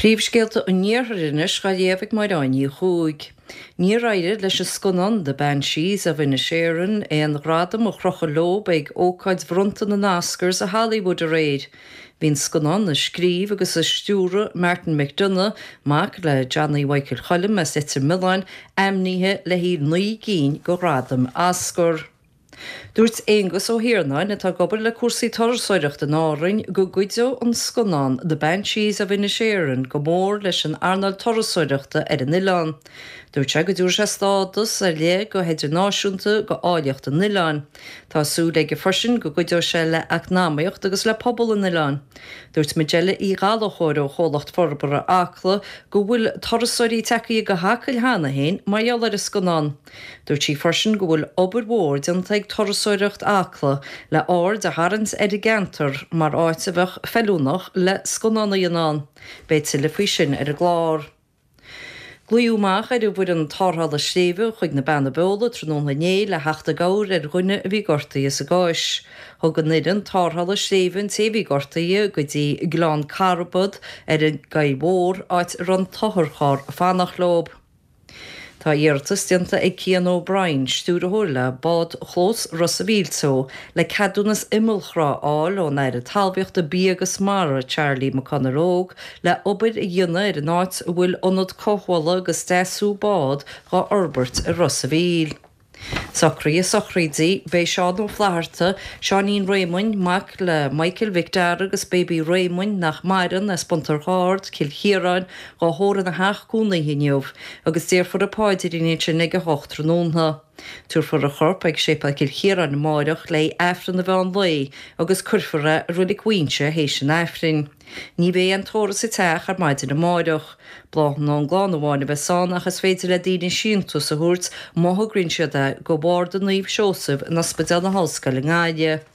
Príomhscéalta an Iarthair anois dhá léamh ag Máire Áine Ní Chuaig. Níor éirigh leis an scannán The Banshees of Inisherin aon ghradam a chrochadh leo ag ócáid bhronnta na nOscars i Hollywood aréir. Bhí an scannán a scríobh agus a stiúraigh Martin McDonagh, mac le Johnny Mhichael Choilm as Leitir Mealláin, ainmnithe le haghaidh 9 gcinn de ghradaim Oscar. Dúirt Aengus Ó hIarnáin, atá ag obair le cúrsaí turasóireachta in Árainn, go gcuideodh an scannán The Banshees of Inisherin go mór leis an earnáil turasóireachta ar an oileán. Dúirt sé go dtabharfaidh sé stádas ar leith go hidirnáisiúnta go áilleacht an oileáin. Tá súil aige freisin go gcuideoidh sé le eacnamaíocht agus le pobal an oileáin. Dúirt Majella Uí Ghallchóir ó Chomhlacht Forbartha Acla go bhfuil turasóirí tagtha go hAcaill cheana féin mar gheall ar an scannán. Dúirt sí freisin go bhfuil obair mhór déanta ag Turasóireacht Acla le aird a tharraingt ar an gceantar mar áit a bheadh feiliúnach le scannán a dhéanamh ann. Beidh tuilleadh faoi sin ar an gclár. Glaodh amach ar an bhfoireann tarrthála sléibhe chuig na Beanna Beola tráthnóna inné le theacht i gcabhair ar dhuine a bhí gortaithe sa gCois. Thug an fhoireann tarrthála sléibhe an té a bhí gortaithe go dtí Gleann Carbad ar an gCoill Mhór, áit a raibh an t-otharcharr ag fanacht leo. Tá iarratas déanta ag Cian O'Brien, stiúrthóir le Bádchlós Ros a' Mhíl Teo, le ceadúnas imeallthrá a fháil ón Aire Talmhaíochta, Bia agus Mara, Charlie McConalogue, le obair a dhéanamh ar an áit a bhfuil ionad cothabhála agus deasú bád dhá fhorbairt i Ros a' Mhíl. Socruithe sochraide, Beidh Seán Ó Flatharta, Seáinín Réamoinn, mac le Michael Mhic Dara agus Baby Réamoinn, nach maireann, as Bun Tor Ard, Cill Chiaráin, dhá thórramh ina theach cónaithe inniu agus déarfar an paidrín ansin ag 8 tráthnóna. Tabharfar a chorp ag Séipéal Chill Chiaráin amáireach le hAifreann an mheán lae agus cuirfear é i Roilig Mhaínse théis an Aifrinn. Ní bheidh aon tórramh sa teach ar maidin amáireach. Bláthanna ón gclann amháin a bheas ann ach is féidir le daoine síntiús a thabhairt má thograíonn siad é go Bharda Naomh Seosamh in Ospidéal na hOllscoile i nGaillimh.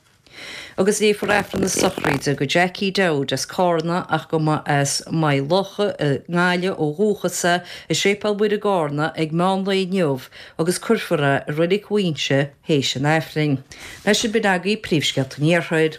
Agus léifear Aifreann na sochraide go Jackie Dowd as Cárna ach go mba as Maigh Locha i nGaillimh ó dhúchas é i Séipéal Mhuire i gCárna ag meán lae inniu agus cuirfear é i Roilig Mhaínse théis an Aifrinn. Leis sin b'in agaibh príomhscéalta an Iarthair.